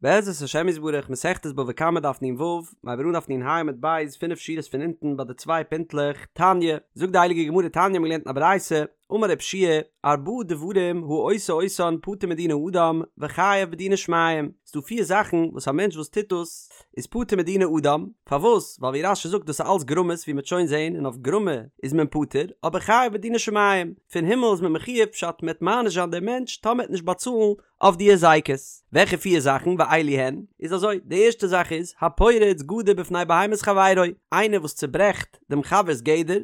בעזרת השם יתברך מסכת בבא קמא דף נ"ו, מ'הייבט אן דף נ"ה עמוד ב', פינף שורות פון אונטן ביי די צוויי פינטלעך, תניא, זאגט די הייליגע גמרא תניא האבן געלערנט אין א ברייתא, אמר רב יהושע ארבעה דברים העושה אותן פטור מדיני אדם וחייב בדיני שמים, ס'דא פיר זאכן וואס א מענטש וואס טוט דאס איז פטור מדיני אדם, פארוואס? ווייל ווי רש"י זאגט דאס איז אלס גרמות ווי מ'וועט שוין זען און אויף גרמה איז מען פטור, אבער חייב בדיני שמים, פון הימל איז מען מחויב פשט מ'עט מעניש זיין דעם מענטש טאמער עט נישט באצאלן אויף די הזיקות. וועלכע פיר זאכן ואלו הן? איז אזוי, די ערשטע זאך איז, הפורץ גדר בפני בהמת חברו, איינער וואס צוברעכט דעם חבר'ס גדר,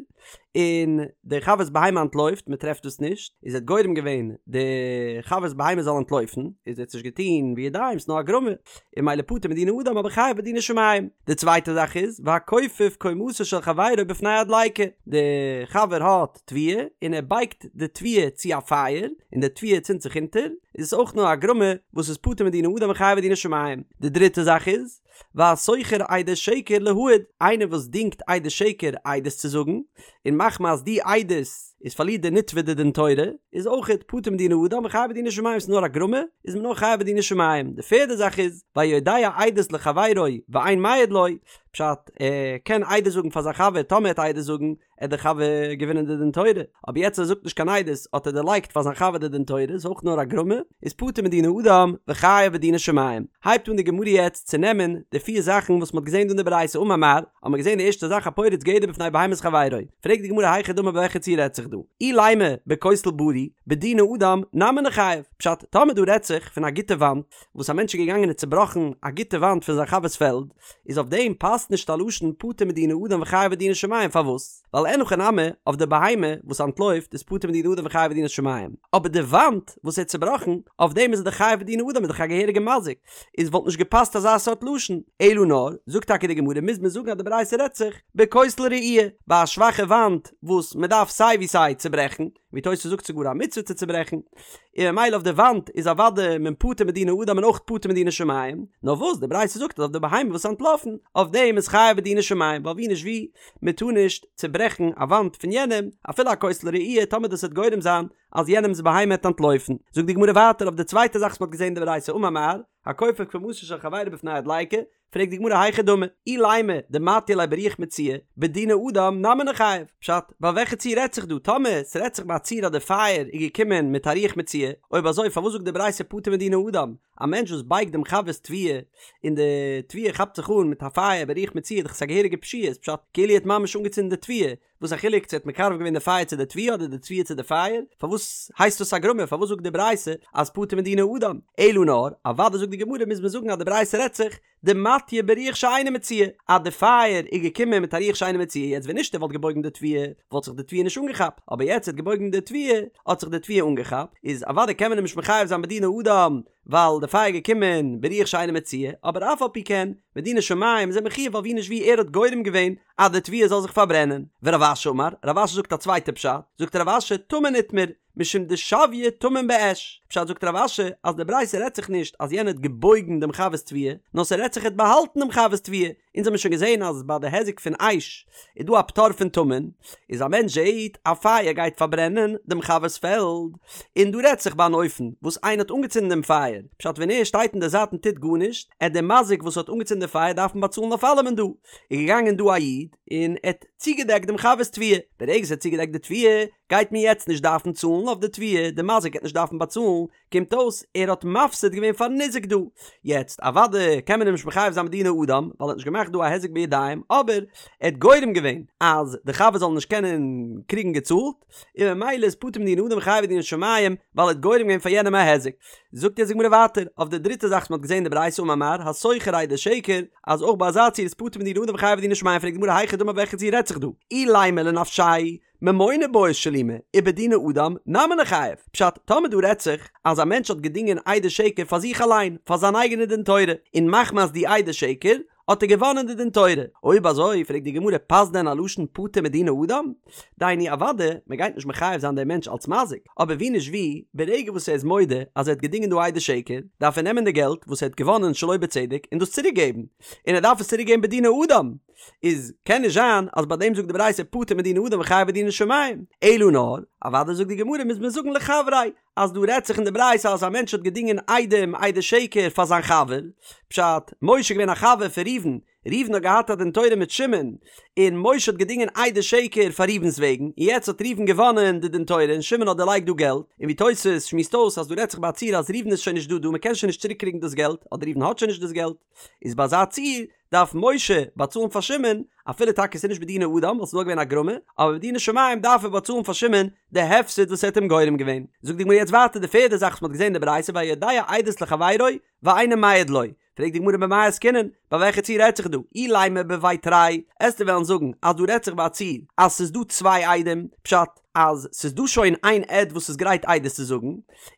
און דער חבר'ס בהמה אנטלויפט, מען טרעפט דאס נישט, איז ער האט גורם געווען די חבר'ס בהמה זאל אנטלויפן, איז ער האט עס נישט געטון בידיים, ס'נאר א גרמה, און ממילא פטור מדיני אדם אבער חייב בדיני שמים. די צווייטע זאך איז, והכופף קומתו של חברו בפני הדליקה, די חבר האט תבואה און ער בייגט די תבואה צו א פייער און די תבואה צינדט זיך אונטער, איז עס אויך נאר א גרמה וואס איז פטור מדיני אדם און חייב בדיני שמים. די דריטע זאך איז, והשוכר עדי שקר להעיד, איינער וואס דינגט עדי שקר עדות צו זאגן, און מחמת די עדות איז פארלירט די נתבע די דין תורה, איז אויכעט פטור מדיני אדם וחייב בדיני שמים, ס'איז נאר א גרמה, איז מען נאר חייב בדיני שמים. די פערדע זאך איז, והיודע עדות לחבירו ואין מעיד לו, פשט, ער קען עדות זאגן פאר זיין חבר טאמער ער וועט עדות זאגן, עט דער חבר געווינען די דין תורה, אבער יעצט ער זאגט נישט קיין עדות האט ער דערלייגט פאר זיין חבר די דין תורה, איז אויך נאר א גרמא, איז פטור מדיני אדם וחייב בדיני שמים. הייבט אן די גמרא יעצט צו נעמען די פיר זאכן וואס מ'האט געזען דא אין די ברייתא אמר מר, האט מען געזען די ערשטע זאך הפורץ גדר בפני בהמת חברו, פרעגט די גמרא היכי דמי ביי וועלכע ציור רעדט זיך דא, אילימא בכותל בריא, בדיני אדם נמי ניחייב, פשט, טאמער דא רעדט זיך פון א גוטע וואנט, וואס א מענטש איז געגאנגען און צובראכן א גוטע וואנט פון זיין חבר'ס פעלד, איז אויף דעם פאסט נישט א לשון פטור מדיני אדם וחייב בדיני שמים, פארוואס? ווייל אין הכי נמי, אויף די בהמה וואס אנטלויפט איז פטור מדיני אדם וחייב בדיני שמים, אבער די וואנט וואס ער האט צובראכן, אויף דעם איז ער דאך חייב בדיני אדם איז דאך א געהעריגע מזיק, איז וואלט נישט געפאסט אזא סארט לשון, אלא נאר, זאגט טאקע די גמרא מוז מען זאגן אז די ברייתא רעדט זיך בכותל רעוע, ביי א שוואכע וואנט וואס מען דארף סיי ווי סיי צוברעכן, ווי תוס' זאגט ס'גאר א מצוה צו צוברעכן, און ממילא אויף די וואנט איז אוודאי מען פטור מדיני אדם און אויך פטור מדיני שמים, נאר וואס די ברייתא זאגט אז אויף די בהמה וואס איז אנטלאפן, אויף דעם איז חייב בדיני שמים, ווייל ווי נישט ווי, מען טאר נישט צוברעכן א וואנט פון יענעם, אפילו א כותל רעוע, טאמער דאס וועט גורם זיין אז יענעמ'ס בהמה וועט אנטלויפן. זאגט די גמרא ווייטער אויף די צווייטע זאך וואס מען האט געזען אין די ברייתא אמר מר, הכופף קומתו של חברו בפני הדליקה, פרעגט די גמרא היכי דמי, אילימא דמטיא ליה ברוח מצויה, בדיני אדם נמי ניחייב, פשט, ביי וועלכע ציור רעדט זיך דא, טאמער ס'רעדט זיך ביי א ציור אז די פייער איז געקומען מיט א רוח מצויה, אויב אזוי פארוואס זאגט די ברייתא פטור מדיני אדם, א מענטש וואס בייגט דעם חבר'ס תבואה, און די תבואה כאפט זיך אן מיט א פייער ברוח מצויה איז דאך עס א געהעריגע פשיעה, איז פשט כאילו ער האט ממש אנגעצינדן די תבואה, וואס א חילוק צו ער האט מקרב געווען די פייער צו די תבואה אדער די תבואה צו די פייער? פארוואס הייסט דאס א גרמא? פארוואס זאגט די ברייתא אז פטור מדיני אדם? אלא נאר, אוודאי זאגט די גמרא מוז מען זאגן אז די ברייתא רעדט זיך דמטיא ברוח שאינה מצויה, אז די פייער איז געקומען מיט א רוח שאינה מצויה, יעצט ווען נישט ער וואלט געבויגן די תבואה וואלט זיך די תבואה נישט אנגעכאפט, אבער יעצט ער האט געבויגן די תבואה האט זיך די תבואה אנגעכאפט, איז אוודאי קען מען אים נישט מחייב זיין בדיני אדם ווייל די פייער איז געקומען ברוח שאינה מצויה, אבער אף על פי כן, בדיני שמים איז ער מחויב ווייל ווי נישט ווי ער האט גורם געווען אז די תבואה זאל זיך פארברענען. ורב אשי אמר, רב אשי זאגט א צווייטע פשט, זאגט רב אשי טמון איתמר, משום דשויה טמון באש, פשט זאגט רב אשי אז די ברייתא רעדט זיך נישט אז יענער האט געבויגן דעם חבר'ס תבואה, נאר ס'רעדט זיך ער האט באהאלטן דעם חבר'ס תבואה, אונז האמיר שוין געזען אז ביי די היזק פון אש איז דא א פטור פון טמון, איז א מענטש זעהט א פייער גייט פארברענען דעם חבר'ס פעלד, און דא רעדט זיך ביי אן אופן וואס איינער האט אנגעצינדן דעם פייער, פשט ווען ער שטייט אין די זייט און טוט גארנישט, עט דער מזיק וואס האט אנגעצינדן די פייער דארפן באצאלן אויף אלעמען דא, איז געגאנגען דא א איד און ער האט צוגעדעקט דעם חבר'ס תבואה, ברגע ער האט צוגעדעקט די תבואה גייט מען יעצט נישט דארפן צאלן אויף די תבואה, די מזיק גייט נישט דארפן באצאלן, קומט אויס ער האט מפסיד געווען פארן ניזק דא. יעצט אוודאי קען מען אים נישט מחייב זיין בדיני אדם ווייל ער האט נישט געמאכט דא א היזק בידיים אבער ער האט גורם געווען אז די חבר זאל נישט קענען קריגן געצאלט און ממילא איז פטור מדיני אדם וחייב בדיני שמים ווייל ער האט גורם געווען פאר יענעם א היזק. זאגט יעצט די גמרא ווייטער אויף די דריטע זאך וואס מען האט געזען אין די ברייתא אמר מר השוכר עדי שקר אז אויך ביי אזא ציור איז פטור מדיני אדם וחייב בדיני שמים פרעגט די גמרא היכי דמי וועלכע ציור רעדט זיך דא אילימא לנפשיה ממונא בעי שלומי, ובדיני אדם נמי ניחייב. פשט, טאמער דא רעדט זיך אז א מענטש האט געדינגען עדי שקר פאר זיך אליין, פאר זיין אייגענע דין תורה, און מחמת די עדי שקר האט ער געוואנען די דין תורה. אויב אזוי, פרעגט די גמרא, פאסט דען א לשון פטור מדיני אדם? דהיינו אוודאי, מען גייט נישט מחייב זיין דעם מענטש אלס מזיק, אבער ווי נישט ווי, ברגע וואס ער איז מודה אז ער האט געדינגען דא עדי שקר, דארף ער נעמען די געלט וואס ער האט געוואנען שלא בצדק און דאס צוריק געבן, און ער דארף עס צוריק געבן בדיני אדם. איז קען נישט זיין אז ביי דעם זאגט די ברייתא פטור מדיני אדם וחייב בדיני שמים, אלא נאר, אוודאי זאגט די גמרא מוז מען זאגן לחבריה, אז דא רעדט זיך אין די ברייתא אז א מענטש האט געדינגען עדים עדי שקר פאר זיין חבר, פשט, משה איז געווען א חבר פון ראובן, ראובן האט געהאט א דין תורה מיט שמעון, און משה האט געדינגען עדי שקר פאר ראובן'ס וועגן, און יעצט האט ראובן געוואנען די דין תורה און שמעון האט דערלייגט דא געלט, און ווי תוס' שמועסט אויס אז דא רעדט זיך ביי א ציור אז ראובן איז שוין נישט דא דא מ'קען שוין נישט צוריק קריגן דאס געלט, אדער ראובן האט שוין נישט דאס געלט, איז ביי אזא ציור דארף משה באצאלן פאר שמעון, אפילו טאקע ס'איז נישט בדיני אדם ווייל ס'איז נאר געווען א גרמא, אבער בדיני שמים דארף ער באצאלן פאר שמעון די הפסד וואס ער האט אים גורם געווען. זאגט די גמרא יעצט ווייטער די פערדע זאך וואס מ'האט געזען אין די ברייתא והיודע עדות לחבירו ואינו מעיד לו, פרעגט די גמרא במאי עסקינן, ביי וועלכע ציור רעדט זיך דא? אילימא בבי תרי, עסטו וועלן זאגן אז דא רעדט זיך ביי א ציור אז ס'איז דא צוויי עדים, פשט אז ס'איז דא שוין איין עד וואס איז גרייט עדות צו זאגן,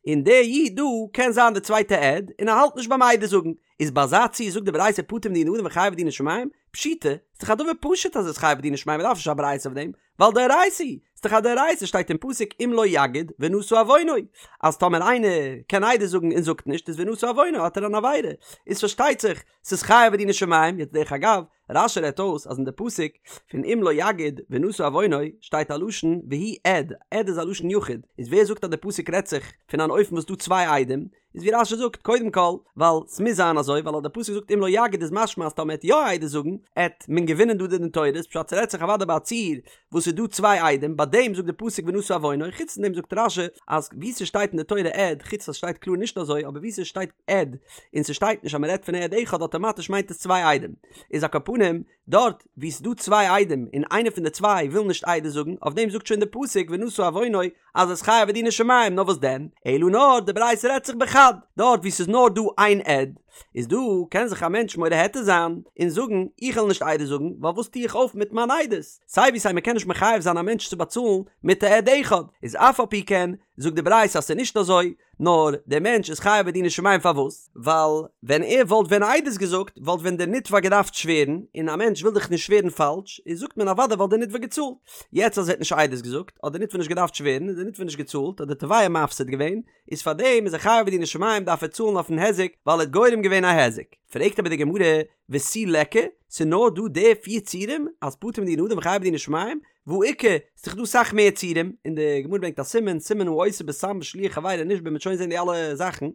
און דער איד דא קען זיין די צווייטע עד, און ער האלט נישט ביים עדות זאגן, איז ביי אזא ציור זאגט די ברייתא פטור מדיני אדם וחייב בדיני שמים? פשיטא, ס'איז דאך א דבר פשוט אז ער איז חייב בדיני שמים מ'דארף נישט א ברייתא אויף דעם, ווייל דאורייתא היא, ס'איז דאך א דאורייתא שטייט אין פסוק אם לא יגיד ונשא עוונו, אז טאמער איינער קען עדות זאגן און זאגט נישט איז ונשא עוונו האט ער אן עבירה, איז פארשטייט זיך ס'איז חייב בדיני שמים, יעצט דרך אגב, רש"י רעדט אויס אז אין די פסוק פון אם לא יגיד ונשא עוונו שטייט א לשון והוא עד, עד איז א לשון יחיד, איז ווער זאגט אז די פסוק רעדט זיך פון אן אופן וואס דא צוויי עדים, איז ווי רש"י זאגט קודם כל ווייל ס'מוז זיין אזוי ווייל אז די פסוק זאגט אם לא יגיד איז משמע אז טאמער עט יא עדות זאגן עט מען געווינען דא די דין תורה איז פשט ס'רעדט זיך אוודאי ביי א ציור וואס איז דא צוויי עדים ביי דעם זאגט די פסוק ונשא עוונו חוץ פון דעם זאגט רש"י אז ווי ס'שטייט אין די תורה עד חוץ אז ס'שטייט קלאר נישט אזוי אבער ווי ס'שטייט עד און ס'שטייט נישט אז מ'רעדט פון עד אחד אטאמאטיש מיינט עס צוויי עדים איז על כל פנים דארט וואו ס'איז דא צוויי עדים און איינער פון די צוויי וויל נישט עדות זאגן, אויף דעם זאגט שוין די פסוק ונשא עוונו אז ער איז חייב בדיני שמים, נאר וואס דען, אלא נאר די ברייתא רעדט זיך בחד, דארט וואו ס'איז נאר דא איין עד, איז דא קען זיך א מענטש מורה היתר זיין און זאגן איך וועל נישט עדות זאגן ווייל וואס טו איך אויף מיט מיין עדות, סיי ווי סיי מ'קען נישט מחייב זיין א מענטש צו באצאלן מיט א עד אחד, איז אף על פי כן זאגט די ברייתא אז ס'איז נישט אזוי, נאר דער מענטש איז חייב בדיני שמים פארוואס? ווייל ווען ער וואלט ווען עדות געזאגט וואלט ווען דער נתבע געדארפט שווערן, און א מענטש וויל דאך נישט שווערן פאלש, איז זאגט מען אוודאי וואלט דער נתבע געצאלט. יעצט אז ער האט נישט עדות געזאגט, האט דער נתבע נישט געדארפט שווערן, איז דער נתבע נישט געצאלט, האט דער תובע מפסיד געווען, איז פארדעם איז ער חייב בדיני שמים דארף ער צאלן אויפן היזק ווייל ער האט גורם געווען א היזק. פרעגט אבער די גמרא, ותו ליכא, ס'איז נאר דא די פיר ציורים אז פטור מדיני אדם וחייב בדיני שמים, והא איכא, ס'איז דאך דא סאך מער ציורים, און די גמרא ברענגט א סימן, סימן העושה בסם בשליח חברו נשבע מ'וועט שוין זען די אלע זאכן,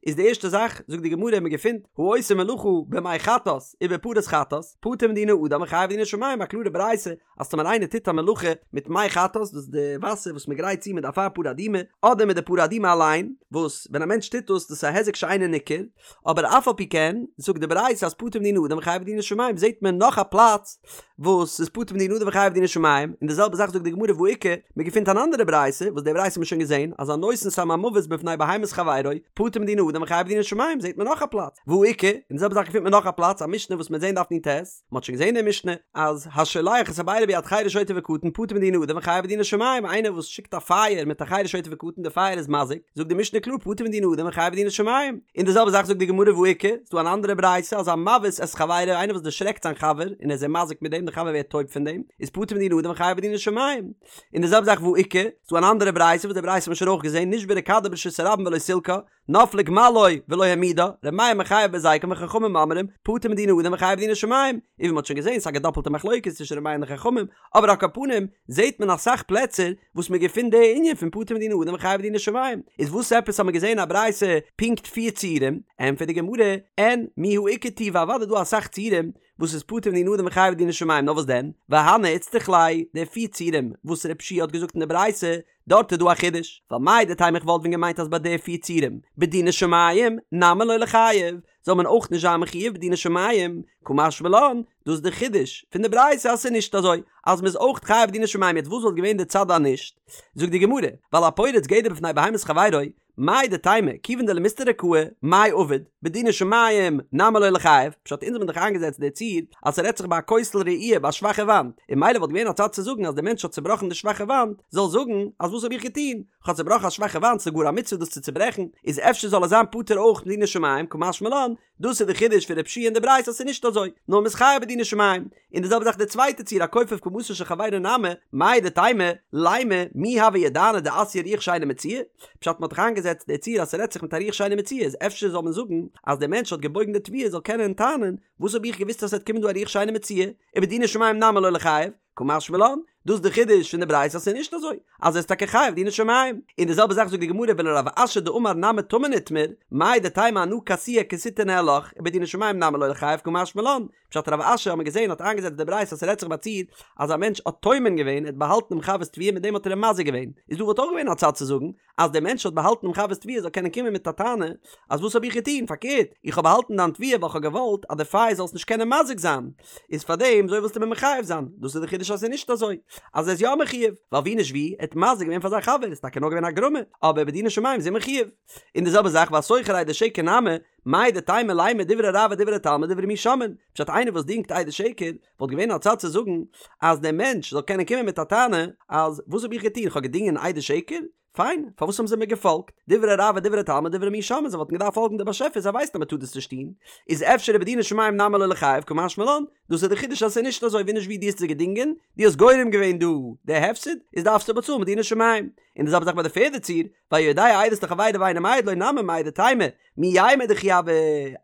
איז די ערשטע זאך, זאגט די גמרא מ'געפינט, העושה מלאכה במי חטאת ובפרת חטאת, פטור מדיני אדם וחייב בדיני שמים, א קלארע ברייתא אז טאמער איינער טוט א מלאכה מיט מי חטאת, דאס איז די וואסער וואס מ'גרייט צו מיט די אפר פרה אדומה, אדער מיט די פרה אדומה אליין, וואס ווען א מענטש טוט דאס, דאס איז א היזק שאינו ניכר, אבער אף על פי כן זאגט די ברייתא אז פטור מדיני אדם וחייב בדיני שמים זעט מען נאך א פלאץ וואס איז פטור מדיני אדם וחייב בדיני שמים און די זעלבע זאך זאגט די גמרא והא איכא מען געפינט אן אנדערע ברייתא וואס די ברייתא האט מען שוין געזען אז הנותן סם המוות בפני בהמת חברו פטור מדיני אדם וחייב בדיני שמים זעט מען נאך א פלאץ והא איכא און די זעלבע זאך געפינט מען נאך א פלאץ א משנה וואס מ'וועט זען דף נ"ט מען האט שוין געזען די משנה אז השולח את הבערה ביד חרש שוטה וקטן פטור מדיני אדם וחייב בדיני שמים איינער וואס שיקט א פייער מיט א חרש שוטה וקטן די פייער איז מזיק זאגט די משנה קלאר פטור מדיני אדם וחייב בדיני שמים און די זעלבע זאך זאגט די גמרא והא איכא ס'דא אן אנדערע ברייתא אז המבעית את חברו איינער וואס דערשרעקט זיין חבר און ער איז אים מזיק מיט דעם די חבר ווערט טויב פון דעם איז פטור מדיני אדם וחייב בדיני שמים און די זעלבע זאך והא איכא ס'דא אן אנדערע ברייתא וואס די ברייתא האט מען שוין אויך געזען נשברה כדו ברשות הרבים ולא סילקה נפלה גמלו ולא העמידה, ר' מאיר מחייב בהזיקן וחכמים אומרים, פטור מדיני אדם וחייב בדיני שמים, און ווי מ'האט שוין געזען ס'איז א געדאפלטע מחלוקת צווישן ר' מאיר און די חכמים, אבער על כל פנים זעט מען אסאך פלעצער וואס מ'געפינט די ענין פון פטור מדיני אדם וחייב בדיני שמים, איז וואס עפעס האט מען געזען א ברייתא פונקט פיר ציורים? ענטפערט די גמרא, אין מיהא איכא טובא אוודאי דא אסאך ציורים וואס איז פטור מדיני אדם וחייב בדיני שמים נאר וואס דען והני איצטריך ליה די פיר ציורים וואס ר' יהושע האט געזאגט אין די ברייתא דארט איז דא א חידוש, ווייל מהו דתימא איך וואלט ווען געמיינט אז ביי די פיר ציורים, בדיני שמים, נמי לא ליחייב, זאל מען אויך נישט זיין מחויב בדיני שמים, קא משמע לן, דאס איז די חידוש פון די ברייתא אז ס'איז נישט אזוי, אז מ'איז אויך חייב בדיני שמים, יעצט וואס וואלט געווען די צד אז נישט? זאגט די גמרא, ווייל הפורץ גדר בפני בהמת חברו, מהו דתימא, כיוון דלמסתריה קאי, מאי עביד, בדיני שמים, נמי לא ליחייב, פשט אונז האבן דאך איינגעזעצט די ציור אז ס'רעדט זיך ביי א כותל רעוע ביי א שוואכע וואנט, און ממילא וואלט געווען א צד צו זאגן אז דער מענטש האט צובראכן די שוואכע וואנט, זאל זאגן אז וואס האב איך געטון, כ'האב צובראכן א שוואכע וואנט ס'איז גאר א מצוה דאס צו צוברעכן, איז אפשר זאל ער זיין פטור אויך מדיני שמים, קא משמע לן. דאס איז די חידוש פון רב שיע אין די ברייתא אז ס'איז נישט אזוי, נאר מ'איז חייב בדיני שמים. און די זעלבע זאך די צווייטע ציור הכופף קומתו של חברו נמי, מהו דתימא, לימא, מי הוה ידענא דאתיא רוח שאינה מצויה? פשט מ'האט דאך איינגעזעצט די ציור אז ס'רעדט זיך מיט א רוח שאינה מצויה איז אפשר זאל מען זאגן אז דער מענטש האט געבויגן די תבואה זאל קענען טענה'ן וואס האב איך געוואוסט אז ס'וועט קומען דא א רוח שאינה מצויה, ובדיני שמים נמי לא ליחייב, קא משמע לן, דאס איז די חידוש פון די ברייתא אז ס'איז נישט אזוי, אז ער איז טאקע חייב דיני שמים. און די זעלבע זאך זאגט די גמרא ולרב אשי דאמר נמי טמון איתמר, מהו דתימא אנא כסויי כסיתא ניהלך, ובדיני שמים נמי לא ליחייב קא משמע לן, פשט רב אשי האט מען געזען האט איינגעזעצט די ברייתא אז ס'רעדט זיך ביי א ציור אז א מענטש האט טומן געווען ער האט באהאלטן דעם חבר'ס תבואה מיט דעם האט ער אים מזיק געווען, איז דא וואלט אויך געווען א צד צו זאגן אז דער מענטש האט באהאלטן דעם חבר'ס תבואה זאל קענען קומען מיט א טענה אז וואס האב איך געטון פארקערט איך האב באהאלטן דיין תבואה ווייל כ'האב געוואלט אז די פייער זאל עס נישט קענען מזיק זיין איז פארדעם אזוי ווילסטו מיר מחייב זיין דאס איז די חידוש אז ס'איז נישט אזוי אז ער איז יא מחויב ווייל ווי נישט ווי ער האט מזיק געווען פאר זיין חבר איז טאקע נאר געווען א גרמא אבער בדיני שמים איז ער מחויב און די זעלבע זאך והשוכר עדי שקר נמי מהו דתימא לימא דברי הרב ודברי תלמיד דברי מי שומעין פשט איינער וואס דינגט עדי שקר וואלט געווען א צד צו זאגן אז דער מענטש זאל קענען קומען מיט א טענה אז וואס האב איך געטון כ'האב געדינגען עדי שקר פיין, פארוואס האבן זיי מיר געפאלגט? דברי הרב ודברי תלמיד דברי מי שומעין, זיי וואלטן געדארפט פאלגן די באשעפער, זיי ווייסן אז מען טאר דאס נישט טון, איז אפשר ובדיני שמים נמי לא ליחייב קא משמע לן, דאס איז די חידוש אז עס איז נישט אזוי ווי נישט ווי דו האסט זיי געדינגען, דו האסט גורם געווען דא די הפסד, איז דארפסטו באצאלן מדיני שמים. און די זעלבע זאך ביי די פערדע ציור, והיודע עדות לחבירו ואינו מעיד לו נמי מהו דתימא, מי יימר דכי הוה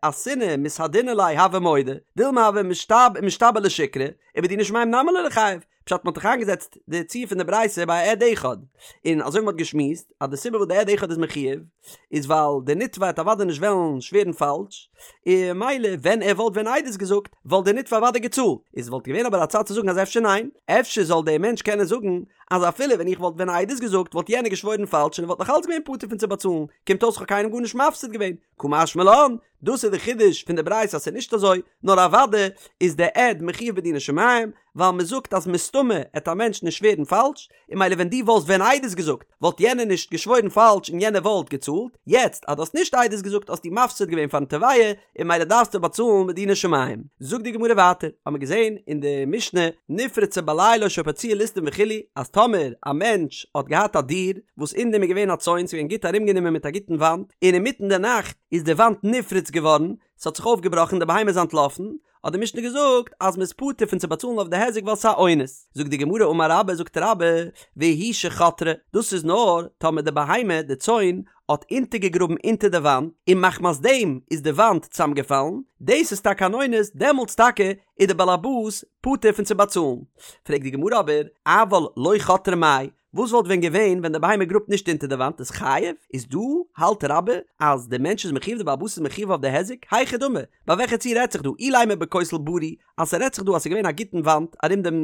אתינא מתהדינא ליה הוה מודה, דילמא הוה משתבע לשיקרא, ובדיני שמים נמי לא ליחייב, פשט מ'האט דאך איינגעזעצט די ציור פון די ברייתא ביי א עד אחד, און אזוי ווי מ'האט געשמועסט אז די סיבה וואס די עד אחד איז מחויב איז ווייל די נתבע וועט אוודאי נישט וועלן שווערן פאלש, און ממילא ווען ער וואלט ווען עדות געזאגט וואלט די נתבע אוודאי געצאלט, איז וואלט געווען אבער א צד צו זאגן אז אפשר ניין, אפשר זאל דער מענטש קענען זאגן אז אפילו ווען איך וואלט ווען עדות געזאגט וואלט יענער געשוואוירן פאלש און ער וואלט נאך אלץ געווען פטור פון צו באצאלן, קומט אויס כ'האב קיינעם גארנישט מפסיד געווען, קא משמע לן, דאס איז די חידוש פון די ברייתא אז ס'איז נישט אזוי, נאר אוודאי איז די עד מחויב בדיני שמים, ווייל מ'זאגט אז מסתמא עט א מענטש נישט שווערן פאלש, און ממילא ווען דו וואלסט ווען עדות געזאגט וואלט יענער נישט געשוואוירן פאלש און יענער וואלט געצאלט, יעצט אז דו האסט נישט עדות געזאגט האסטו מפסיד געווען פארן תובע, און ממילא דארפסטו באצאלן מדיני שמים. זאגט די גמרא ווייטער, האמיר געזען אין די משנה, נפרצה בלילה או שפרצוה ליסטים וכו', אז טאמער א מענטש האט געהאט א דיר וואס אין דעם איז געווען א צאן, ס'איז געווען גוט ארומגענומען מיט א גוטן וואנט, און אינמיטן די נאכט איז די וואנט נפרץ געווארן, ס'האט זיך אויפגעבראכן, די בהמה איז אנטלאפן, האט די משנה געזאגט אז מ'איז פטור פון צו באצאלן אויף די היזק ווייל ס'איז א אונס. זאגט די גמרא אמר רבה, זאגט רבה, והוא שחתרה, דאס איז נאר טאמער די בהמה, די צאן, האט אונטערגעגראבן אונטער די וואנט, און מחמת דעם איז די וואנט צוזאמגעפאלן, דאס איז טאקע אן אונס, דעמאלטס טאקע איז די בעל הבית פטור פון צו באצאלן. פרעגט די גמרא אבער, אבל לא חתרה מאי, וואס וואלט ווען געווען ווען די בהמה גראבט נישט אונטער די וואנט איז חייב? איז דא האלט רבה אז די מענטש איז מחויב די בעל הבית איז מחויב אויף די היזק? היכי דמי, ביי וועלכע ציור רעדט זיך דא? אילימא בכותל בריא אז ס'רעדט זיך דא אז ס'איז געווען א גוטן וואנט ארום דעם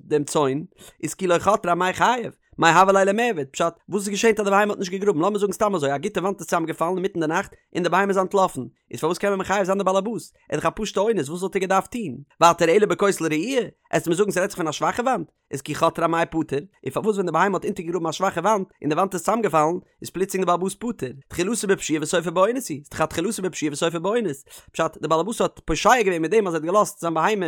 דעם צאן, איז כי לא חתרה אמאי חייב? מאי הוה ליה למיעבד? פשט, וואס איז געשען אז די בהמה האט נישט געגראבן? לאמיר זאגן סתם אזוי, א גוטע וואנט איז צוזאמגעפאלן אינמיטן די נאכט און די בהמה איז אנטלאפן, איז פארוואס קען מען מחייב זיין די בעל הבית? ער איז דאך א פשוטע אונס, וואס וואלט ער געדארפט טון? ווייטער אלא בכותל רעוע? עסט מיר זאגן ס'רעדט זיך פון א שוואכע וואנט? איז כי חתרה אמאי פטור? און פארוואס ווען די בהמה האט אונטערגעגראבן א שוואכע וואנט און די וואנט איז צוזאמגעפאלן, איז פלוצלינג די בעל הבית פטור? תחילתו בפשיעה וסופו באונס הוא, ס'דאך א תחילתו בפשיעה וסופו באונס. פשט, די בעל הבית האט פושע געווען מיט דעם אז ער האט געלאזט זיין בהמה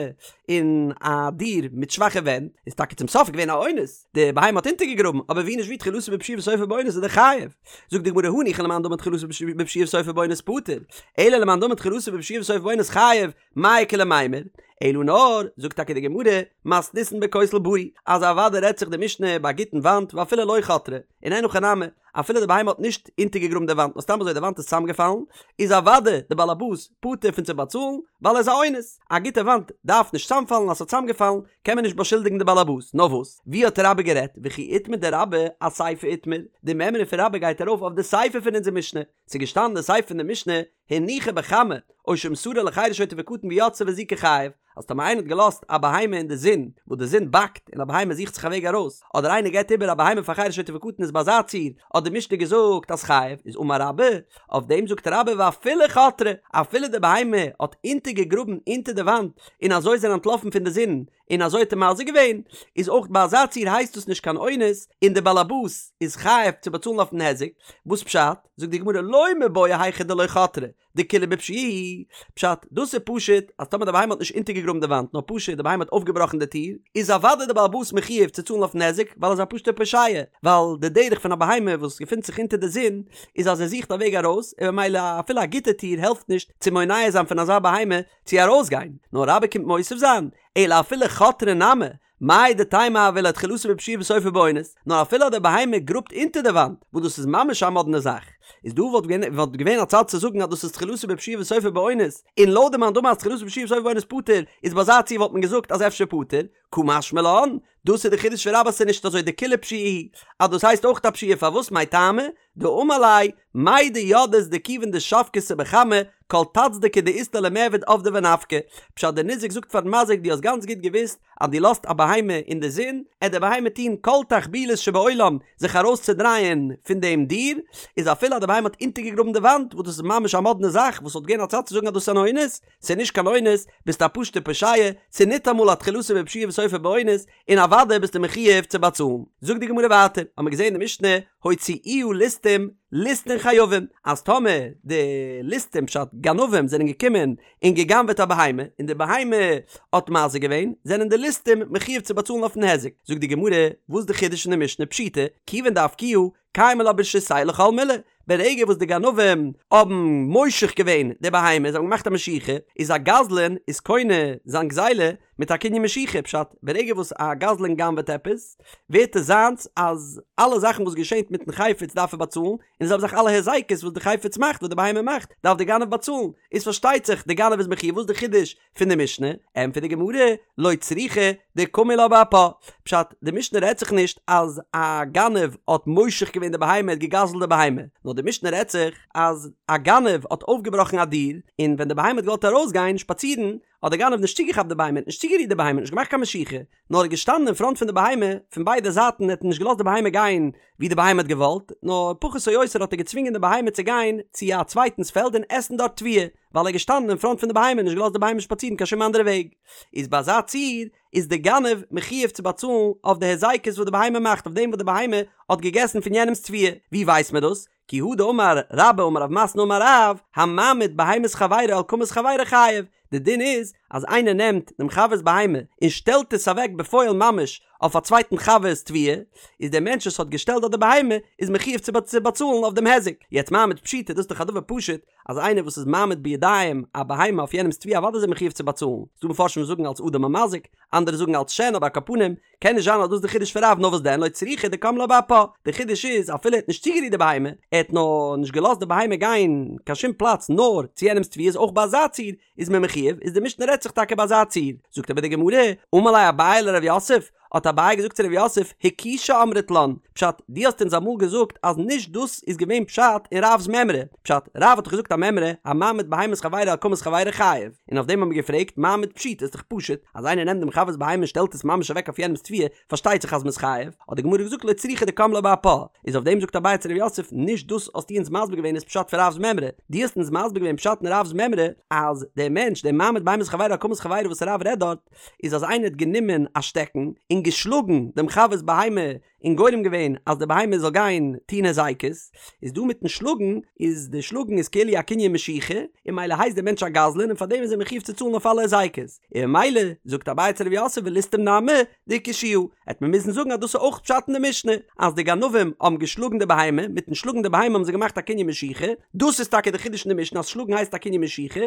אין א דיר מיט שוואכע ווענט, איז טאקע צום סוף געווען א אונס, די בהמה האט אונטערגעגראבן, אבער ווי נישט ווי תחילתו בפשיעה וסופו באונס איז דער חייב. זאגט די גמרא הניחא למאן דאמר תחילתו בפשיעה וסופו באונס פטור, אלא למאן דאמר תחילתו בפשיעה וסופו באונס חייב, מאי איכא למימר? אלא נאר, זאגט טאקע די גמרא, מתניתין בכותל בריא, אז אוודאי רעדט זיך די משנה ביי א גוטן וואנט ואפילו לא חתרה, און אין הכי נמי, אפילו די בהמה האט נישט אונטערגעגראבן די וואנט נאר סתם אזוי די וואנט איז צוזאמגעפאלן, איז אוודאי די בעל הבית פטור פון צו באצאלן, ווייל ער איז א אונס, א גוטע וואנט דארף נישט צוזאמפאלן אז ס'האט צוזאמגעפאלן קען מען נישט באשולדיגן די בעל הבית, נאר וואס? ווי האט רבה גערעדט? וכי איתמר דרבה אסיפא איתמר, די מימרא פון רבה גייט ארויף אויף די סיפא פון אונזער משנה, ס'איז געשטאנען די סיפא פון די משנה, הניחה בחמה, או שמסרה לחרש שוטה וקטן ויצאה והזיקה חייב, אז טאמער איינער האט געלאזט א בהמה אין די זון, וואס די זון באקט און א בהמה זוכט זיך א וועג ארויס, אדער איינער געבט איבער א בהמה פאר חרש שוטה וקטן איז ביי אזא ציור, האט די משנה געזאגט אז חייב, איז אמר רבה, אויף דעם זאגט רבה ואפילו חתרה, אפילו די בהמה האט אונטערגעגראבן אונטער די וואנט און אזוי איז ער אנטלאפן פון די זון, און אזוי האט ער מזיק געווען, איז אויך ביי אזא ציור הייסט דאס נישט קיין אונס, און דער באלעבאס איז חייב צו באצאלן אויפן היזק, וואס פשט? זאגט די גמרא לא מיבעיא היכא דלא חתרה, דכולהו בפשיעה הוא, פשט, דאס איז פשוט אז טאמער די בהמה האט נישט אונטערגעגראבן די וואנט נאר פשוט די בהמה האט אויפגעבראכן די טיר, איז אוודאי די בעל הבית מחויב צו צאלן אויפן היזק ווייל ער איז א פשוט'ער פושע, ווייל די דרך פון א בהמה וואס געפינט זיך אונטער די זון איז אז ער זוכט א וועג ארויס, און ממילא אפילו א גוטע טיר העלפט נישט צו מונע זיין פון אזא בהמה צו ארויסגיין, נאר רבה קומט מוסיף זיין, אלא אפילו חתרה נמי, מהו דתימא הוה ליה תחילתו בפשיעה וסופו באונס, נאר אפילו אז די בהמה גראבט אונטער די וואנט, וואס דאס איז ממש א מאדנע זאך, איז דא וואלט געווען וואלט געווען א צד צו זאגן אז דאס איז תחילתו בפשיעה וסופו באונס, און לויט די מאן דאמר אז תחילתו בפשיעה וסופו באונס פטור, איז ביי אזא ציור וואלט מען געזאגט אז אפשר פטור, קא משמע לן, דאס איז די חידוש פון רבה אז ס'איז נישט אזוי דכולהו פשיעה הוא, אז דאס הייסט אויך א פשיעה פארוואס מאי טעמא, דאמר ליה, מידע ידעת דכיון דשבקתה בחמה, כל טצדקי דאית לה למיעבד עבדא ונפקא. פשט דער ניזק זאגט פארן מזיק דו האסט גאנץ גוט געוואוסט אז דו לאזט א בהמה אין די זון, עט די בהמה טון כל תחבולות שבעולם זיך ארויס צו דרייען פון דעם דיר, איז אפילו אז די בהמה האט אונטערגעגראבן די וואנט, וואס דאס איז ממש א מאדנע זאך, וואס וואלט געווען א צד צו זאגן אז דאס איז אן אונס, ס'איז נישט קיין אונס, ביסט א פשוט'ער פושע, ס'איז ניטאמאל א תחילתו בפשיעה וסופו באונס, און אוודאי ביסטו מחויב צו באצאלן. זאגט די גמרא ווייטער, האמיר געזען אין די משנה, הוציאוה ליסטים, ליסטין חייבין, אז טאמער די ליסטים פשט גנבים זענען געקומען און גע'גנב'עט א בהמה, און די בהמה האט מזיק געווען, זענען די ליסטים מחויב צו באצאלן אויפן היזק. זאגט די גמרא, וואס די חידוש אין די משנה פשיטא, כיוון דאפקוה, קיימא לה ברשותייהו לכל מילי, ברגע וואס די גנבים האבן מושך געווען די בהמה, זיי האבן געמאכט א משיכה, איז א גזלן איז קונה זיין גזילה מיט א קנין משיכה, פשט, ברגע וואס א גזלן גנב'עט עפעס, ווערט עס זיינס אז אלע זאכן וואס געשענט מיטן חפץ דארף ער באצאלן, און די זעלבע זאך אלע היזקות וואס די חפץ מאכט, וואס די בהמה מאכט, דארף די גנב באצאלן, איז פארשטייט זיך די גנב איז מחויב, וואס איז די חידוש פון די משנה? ענטפערט די גמרא, לא צריכא דקמו לה באפה, פשט, די משנה רעדט זיך נישט אז א גנב האט מושך געווען די בהמה, האט געגזלט די בהמה, נאר די משנה רעדט זיך אז א גנב האט אויפגעבראכן א דיר, און ווען די בהמה האט געוואלט ארויסגיין שפאצירן, האט דער גנב נישט צוגעכאפט די בהמה, נישט צוגערירט די בהמה, נישט געמאכט קיין משיכה, נאר ער איז געשטאנען אין פראנט פון די בהמה, פון ביידע זייטן, ער האט נישט געלאזט די בהמה גיין ווי די בהמה האט געוואלט, נאר פחות או יותר האט ער געצווינגען די בהמה צו גיין צו א צווייטנס פעלד און עסן דארט תבואה, ווייל ער איז געשטאנען אין פראנט פון די בהמה און נישט געלאזט די בהמה שפאצירן קיין שום אנדערע וועג. איז ביי אזא ציור איז די גנב מחויב צו באצאלן אויף די היזקות וואס די בהמה מאכט, אויף דעם וואס די בהמה האט געגעסן פון יענעמ'ס תבואה. ווי ווייסט מען דאס? כי הא דאמר רבה אמר רב מתנה אמר רב, המעמיד בהמת חברו על קמת חברו חייב, די דין איז אז איינער נעמט דעם חבר'ס בהמה און שטעלט עס אוועק בפועל ממש אויף א צווייטן חבר'ס תבואה, איז דער מענטש וואס האט געשטעלט דארט די בהמה איז מחויב צו באצאלן אויף דעם היזק. יעצט מעמיד פשיטא, דאס איז דאך א דבר פשוט אז איינער וואס איז מעמיד בידיים א בהמה אויף יענעמ'ס תבואה אוודאי איז ער מחויב צו באצאלן, ס'דא מפרשים וואס זאגן אלס אדם המזיק, אנדערע זאגן אלס שן אבער על כל פנים קען נישט זיין אז דאס איז די חידוש פון רב נאר וואס דען לא צריכא דקם לה באפה, די חידוש איז אפילו ער האט נישט צוגערירט די בהמה, ער האט נאר נישט געלאזט די בהמה גיין קיין שום פלאץ נאר צו יענעמס תבואה איז אויך ביי אזא ציור איז מען מחויב, איז די משנה רעדט זיך טאקע ביי אזא ציור, זאגט אבער די גמרא, אמר ליה אביי לרב יוסף, האט אביי געזאגט צו רב יוסף, הכישה אמרת לן, פשט, דו האסט אונז אמאל געזאגט אז נישט דאס איז געווען פשט אין רב'ס מימרא, פשט, רב האט דאך געזאגט א מימרא, המעמיד בהמת חברו על קמת חברו חייב, און אויף דעם האבן מיר געפרעגט, מעמיד פשיטא איז דאך פשוט, אז איינער נעמט דעם חבר'ס בהמה און שטעלט עס ממש אוועק אויף יענעמ'ס תבואה, פארשטייט זיך אז מ'איז חייב, האט די גמרא געזאגט לא צריכא דקם לה באפה, איז אויף דעם זאגט אביי צו רב יוסף, נישט דאס האסטו אונז מסביר געווען איז פשט פון רב'ס מימרא, דו האסט אונז מסביר געווען פשט אין רב'ס מימרא, אז דער מענטש, דער מעמיד בהמת חברו על קמת חברו וואס רב רעדט דארט, איז אז איינער האט גענומען א שטעקן און געשלאגן דעם חבר'ס בהמה און גורם געווען אז די בהמה זאל גיין טון הזיקות, איז דא מיטן שלאגן, איז די שלאגן איז כאילו א קנין משיכה, און ממילא הייסט דער מענטש א גזלן און פארדעם איז ער מחויב צו צאלן אויף אלע הזיקות, און ממילא זאגט אביי צו רב יוסף וליסטים נמי דהכישוה, העט מען מוזן זאגן אז דאס איז אויך פשט אין די משנה, אז די גנבים האבן געשלאגן די בהמה, מיטן שלאגן די בהמה האבן זיי געמאכט א קנין משיכה, דאס איז טאקע די חידוש אין די משנה אז שלאגן הייסט א קנין משיכה,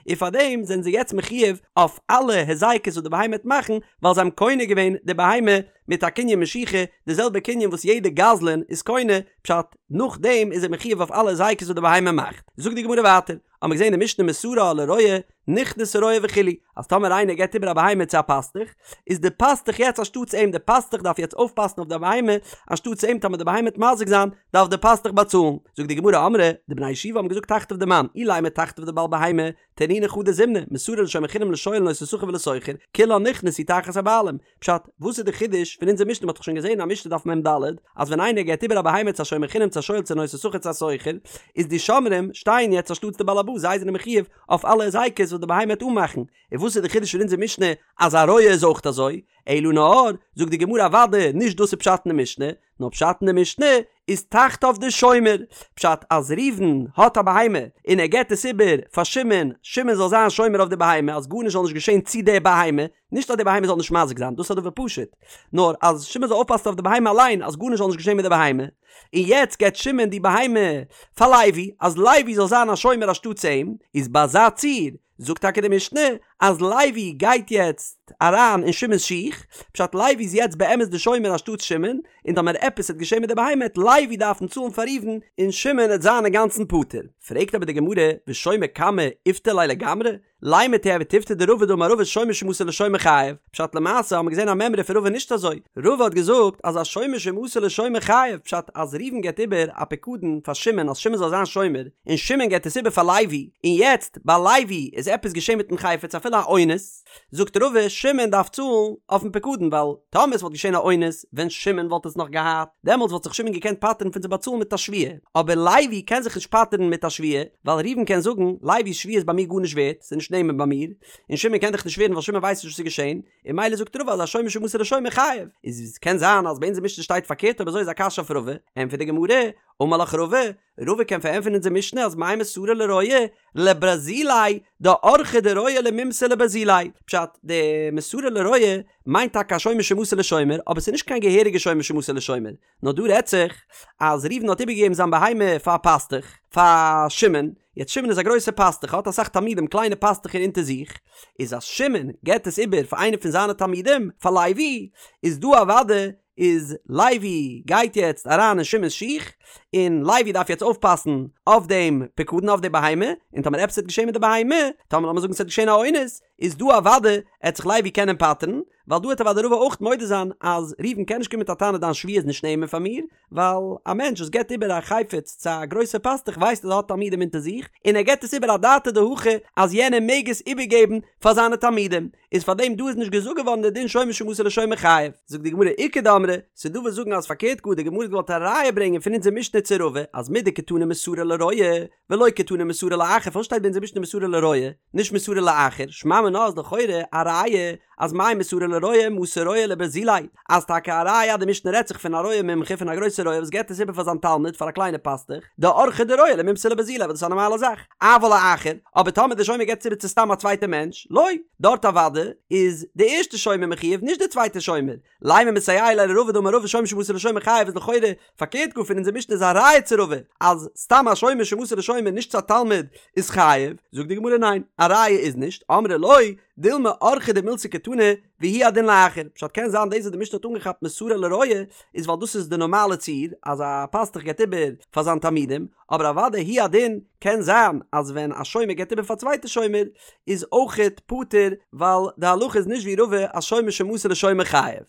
און פארדעם זענען זיי יעצט מחויב אויף אלע הזיקות וואס די בהמה העט מאכן, ווייל זיי האבן קונה געווען די בהמה מיט א קנין משיכה, די זעלבע קנין וואס יעדע גזלן איז קונה, פשט, נאכדעם איז ער מחויב אויף אלע הזיקות וואס די בהמה מאכט. זאגט די גמרא ווייטער, האבן מיר געזען אין די משנה מסרה לרועה, נכנסה רועה וכו', אז טאמער איינער געבט איבער א בהמה צו א פאסטוך, איז די פאסטוך יעצט אנשטאטס אים, די פאסטוך דארף יעצט אויפפאסן אויף די בהמה, אנשטאטס אים, טאמער די בהמה וועט מזיק זיין, דארף די פאסטוך באצאלן. זאגט די גמרא, אמרי, די בני ישיבה האבן געזאגט תחתיו דמאן, אילימא תחתיו דבעל בהמה, תנינא חדא זימנא, מסרה לשומר חינם לשואל לנושא שכר ולשוכר, כולן נכנסו תחת הבעלים. פשט, וואס איז די חידוש? חידוש פון אונזער משנה? מ'האט דאך שוין געזען א משנה דף מ"ד אז ווען איינער געבט איבער א בהמה צו א שומר חינם צו א שואל צו נושא שכר צו א שוכר איז די שומרים שטייען יעצט אנשטאטס די בעל הבית זיי זענען מחיוב אויף אלע היזקות וואס די בהמה וועט אנמאכן און וואס איז די חידוש פון אונזער משנה אז א רועה איז אויך אזוי? אלא נאר, זאגט די גמרא אוודאי נישט דאס איז פשט אין די משנה, נאר פשט אין די משנה איז תחתיו דשומר, פשט אז ראובן האט א בהמה און ער געבט עס איבער פאר שמעון, שמעון זאל זיין שומר אויף די בהמה אז גארנישט זאל נישט געשען צו די בהמה, נישט אז די בהמה זאל נישט מזיק זיין, דאס איז א דבר פשוט, נאר אז שמעון זאל אויפפאסן אויף די בהמה אליין אז גארנישט זאל נישט געשען מיט די בהמה, און יעצט געבט שמעון די בהמה פאר לוי אז לוי זאל זיין א שומר אנשטאטס אים, איז ביי אזא ציור זאגט טאקע די משנה אז לוי גייט יעצט אריין אין שמעון'ס שיך, פשט לוי איז יעצט באמת די שומר אנשטאטס שמעון, און טאמער עפעס וועט געשען מיט די בהמה העט לוי דארפן צאלן פאר ראובן און שמעון העט זיין אינגאנצן פטור. פרעגט אבער די גמרא, ושומר קמא איפטר ליה לגמרי? לימא תיהוי תיובתא דרבא דאמר רבא שומר שמסר לשומר חייב, פשט למעשה האבן מיר געזען א מימרא פון רבא נישט אזוי, רבא האט געזאגט אז א שומר שמסר לשומר חייב, פשט אז ראובן געבט איבער א פיקדון פאר שמעון אז שמעון זאל זיין שומר, און שמעון געבט עס איבער פאר לוי, און יעצט ביי לוי איז עפעס געשען מיטן חפץ אפילו א אונס, זאגט רבא שמעון דארף צאלן אויפן פיקדון ווייל טאמער עס וואלט געשען א אונס ווען שמעון וואלט עס נאך געהאט דעמאלטס וואלט זיך שמעון געקענט פטר'ן פון צו באצאלן מיט א שבועה, אבער לוי קען זיך נישט פטר'ן מיט א שבועה ווייל ראובן קען זאגן לוי'ס שבועה איז ביי מיר גארנישט ווערט ס'איז נישט נאמן ביי מיר, און שמעון קען דאך נישט שווערן ווייל שמעון ווייסט נישט וואס איז געשען, און ממילא זאגט רבא אז א שומר שמסר לשומר חייב, איז קען זיין אז ביי אונזער משנה שטייט פארקערט אויב אזוי איז א קשיא אויף רבא, ענטפערט די גמרא, אמר לך רבא, רבא קען פארענטפערן אונזער משנה אז מאי מסרה לרועה לברזיליה דאורחיה דרועה למימסר לברזיליה, פשט, די מסרה לרועה מיינט טאקע א שומר שמסר לשומר, אבער ס'איז נישט קיין געהעריגע שומר שמסר לשומר, נאר דא רעדט זיך אז ראובן האט איבערגעגעבן זיין בהמה פאר א פאסטוך, פאר שמעון, יעצט שמעון איז א גרויסער פאסטוך, האט אסאך תלמידים קליינע פאסטוכער אונטער זיך, איז אז שמעון געבט עס איבער פאר איינער פון זיינע תלמידים, פאר לוי, איז דא אוודאי איז לוי גייט יעצט אריין אין שמעון'ס שיך, און לוי דארף יעצט אויפפאסן אויף דעם פיקדון אויף די בהמה, און טאמער עפעס וועט געשען מיט די בהמה, טאמער לאמיר זאגן ס'וועט געשען א אונס, איז דא אוודאי עט זיך לוי קענען פטר'ן, ווייל דא העט אוודאי רבא אויך מודה זיין אז ראובן קען נישט קומען מיט א טענה דיין שבועה איז נישט נאמן פאר מיר, ווייל א מענטש וואס געבט איבער א חפץ צו א גרויסע פאסטוך ווייסט אז ער האט תלמידים אונטער זיך, און ער געבט עס איבער אדעתא דהכי אז יענער מעג עס איבערגעבן פאר זיינע תלמידים, איז פאר דעם דא איז נישט געזאגט געווארן די דין שומר שמסר לשומר חייב. זאגט די גמרא איכא דאמרי, ס'איז דא וואס זאגן אז פארקערט גאר די גמרא האט געוואלט א ראיה ברענגען פון אונזער משנה צו רבא אז מדקתני מסרה לרועה ולא קתני מסרה לאחר פארוואס שטייט ביי אונזער משנה מסרה לרועה נישט מסרה לאחר שמע מינה איז לכאורה א ראיה אז מאי מסרה לרועה מסר רועה לברזיליה אז טאקע א ראיה אז די משנה רעדט זיך פון א רועה מומחה פון א גרויסע רועה וואס געבט עס איבער פאר זיין תלמיד פאר א קליינע פאסטוך דאורחיה דרועה למימסר לברזיליה וואס דאס איז א נארמאלע זאך אבל לאחר אבער טאמער די שומר געבט עס איבער צו סתם א צווייטע מענטש לא דארט אוודאי איז די ערשטע שומר מחויב נישט די צווייטע שומר לימא מסייע ליה לרבא דאמר רבא שומר שמסר לשומר חייב איז לכאורה פארקערט גאר פון אונזער משנה איז א ראיה צו רבא אז סתם א שומר שמסר לשומר נישט צו א תלמיד איז חייב, זאגט די גמרא ניין א ראיה איז נישט, אמרי לא, דילמא אורחא דמילתא קתני והוא הדין לאחר, פשט קען זיין דאס וואס די משנה האט אנגעכאפט מסרה לרועה איז ווייל דאס איז די נארמאלע ציור אז א פאסטוך געבט איבער פאר זיין תלמידים, אבער אוודאי הוא הדין קען זיין אז ווען א שומר געבט איבער פאר א צווייטע שומר איז אויכעט פטור ווייל די הלכה איז נישט ווי רבא אז שומר שמסר לשומר חייב.